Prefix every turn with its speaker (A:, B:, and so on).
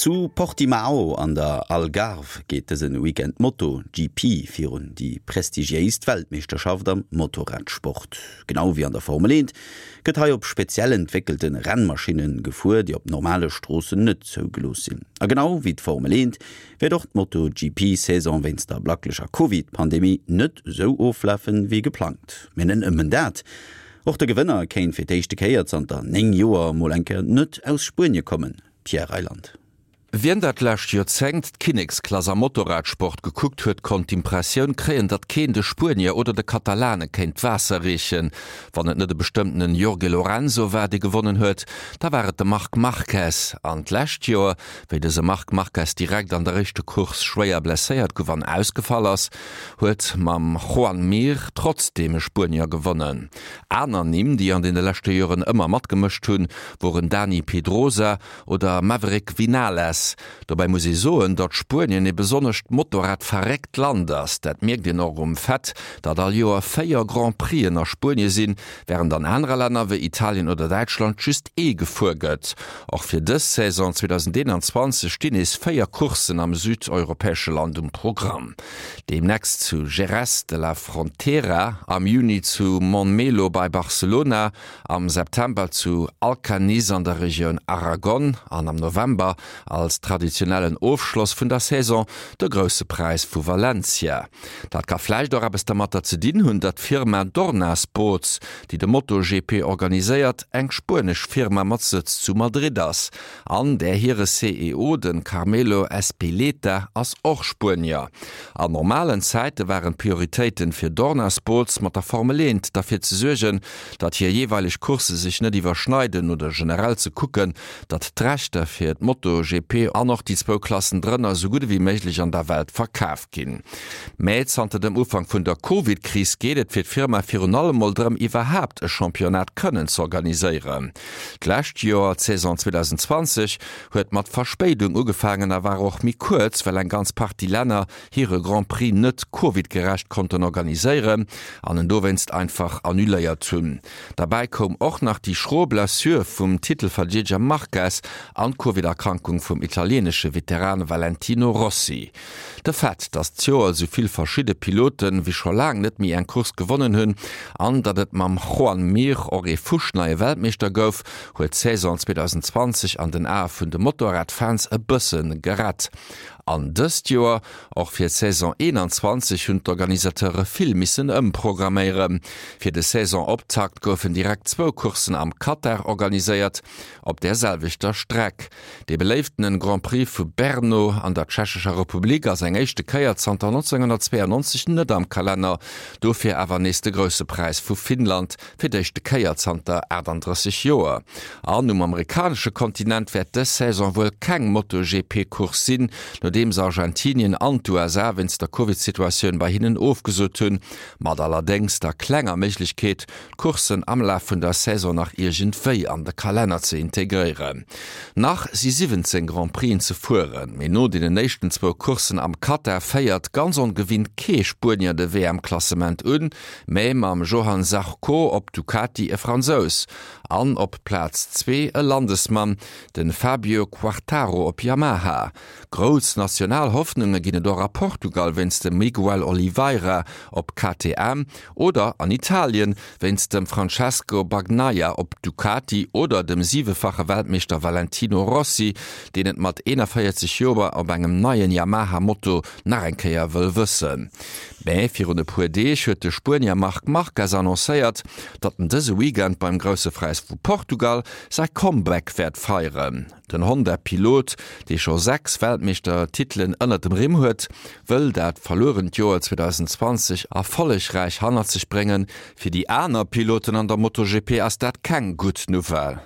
A: Zu Portimao an der Algarve geet dëse Weekend d'Moto GP virun, déi prestigiéist Weltmeeschterschaft am Motorradsport. Genau wéi an der Formel 1 gëtt hei op speziell entwéckelte Rennmaschinne gefuer, déi op normale Stroossen net zougelooss sinn. A genau wéi d'Formel 1 wäert och d'Moto GP Saison wéinst der blacklecher Covid-Pandemie net esou oflafen, wéi geplangt. Mee net nëmmen dat, och de Gewënner kéint fir d'éischte Kéier zanter 9 Joer mol eng Kéier net aus Spuenie kommen. Pierre Reyland.
B: Wien dat lescht Joerzéngt d'Kinneksklass am Motorradsport gekuckt huet, konnt d'Impressioun kréien, datt keen de Spuenier oder de Katalane kéint d'Waasser reechen. Wann et net e bestëmmtenen Jorge Lorenzo war, dee gewonnen huet, da war et de Marc Marquez. An d'lescht Joer, wéi dëse Marc Marquez direkt an der éischte Course schwéier blesséiert gouf an ausgefall ass, huet mam Joan Mir trotzdeem e Spuenier gewonnen. Aner Nimm, déi an deene leschte Joren ëmmer matgemëscht hunn, woren Dani Pedrosa oder Maverick Vinales. Dobäi muss ee soen, datt Spuenien ee besonnescht Motorrad-verréckt Land ass. Dat mierkt een och um Fait, datt all Joer 4 Grand Prixen a Spuenie sinn, wärend an anere Länner wéi Italien oder Däitschland just ee gefuer gëtt. Och fir dës Saison 2021 stinn nees 4 Courssen am südeuropäesche Land um Programm. Deemnächst zu Jerez de la Frontera, am Juni zu Montmelo bei Barcelona, am September zu Alcañiz an der Regioun Aragon an am November als traditionellen Ofschloss vun der Saison de Grousse Präis vu Valencia. Dat ka vläicht och eppes dermatter ze dinn hunn, datt d'Firma Dorna Sports, déi de MotoGP organiséiert, eng spuenesch Firma mat Sëtz zu Madrid ass an där hire CEO, de Carmelo Ezpeleta, ass och Spuenier. An normalen Zäite waren d'Prioritéiten fir Dorna Sports mat der Formel 1 derfir ze suergen, datt hir jeeweileg Coursse sech net iwwerschneiden oder generell ze kucken, datt d'Rechter fir d'MotoGP an och déi zwou Klassen drënner esou gutt ewéi méiglech an der Welt verkaf ginn. Mä zanter dem Ufank vun der Covid-Kris geet et fir d'Firma virun allem mol drëm, iwwerhaapt e Championnat kënnen z'organiséieren. D'lescht Joer, d'Saison 2020, huet mat Verspéidung ugefaangen a war och méi kuerz, well eng ganz Partie Länner hire Grand Prix net covidgerecht konnten organiséieren an en dowéinst einfach annuléiert hunn. Derbäi koum och nach déi schro Blessure vum Titelverdeedeger Marquez an d'Covid-Erkrankung vum italieenesche Veteran Valentino Rossi. De Fait, datt d'Joer esou vill verschidde Pilote wéi scho laang net méi eng Course gewonnen hunn an datt et mam Joan Mir och ee fuschneie Weltmeeschter gouf, huet d'Saison 2020 an den Ae vun de Motorradfans e bësse gerett. An dëst Joer, och fir d'Saison 21, hunn d'Organisateure vill missen ëmprogramméieren. Fir de Saisonoptakt goufen direkt zwou Courssen am Katar organiséiert, op där selwechter Streck. Dee beléiftenen Grand Prix vu Brno an der Tschechescher Republik ass eng éischte Kéier zanter 1992 net am Kalenner, dofir awer nees de Grousse Präis vu Finnland fir d'éischte Kéier zanter 38 Joer. An um amerikanesche Kontinent wäert dës Saison wuel keng MotoGP-Course sinn, nodeems Argentinien an d'USA wéinst der Covid-Situatioun bei hinnen ofgesot hunn, mat allerdéngs der klenger Méiglechkeet, d'Courssen am Laf vun der Saison nach iergendwéi an de Kalenner ze integréieren. Nach si 17 Grand Prixen ze fueren, mee no deenen éischten zwou Courssen am Katar féiert ganz ongewinnt kee Spuenier de WM-Klassement un, mä mam Johann Zarco op Ducati e Fransous an op Plaz zwee e Landesmann, de Fabio Quartaro op Yamaha. Grouss national Hoffnunge ginn et och a Portugal wéinst dem Miguel Oliveira op KTM oder an Italien wéinst dem Francesco Bagnaia op Ducati oder dem siwefache Weltmeeschter Valentino Rossi, deen et mat 41 Joer op engem neien Yamaha-Moto nach eng Kéier wëll wëssen. Mä virun e puer Deeg huet de Spuenier Marc Marquez annoncéiert, datt en dëse Weekend beim Grousse Präis vu Portugal säi Comeback wäert feieren. Den Honda-Pilot, dee scho 6 Weltmeeschtertitelen ënnert dem Rimm huet, wëll dat verluerent Joer 2020 erfollegräich hannert sech bréngen. Fir déi aner Piloten an der MotoGP ass dat keng gutt Nouvelle.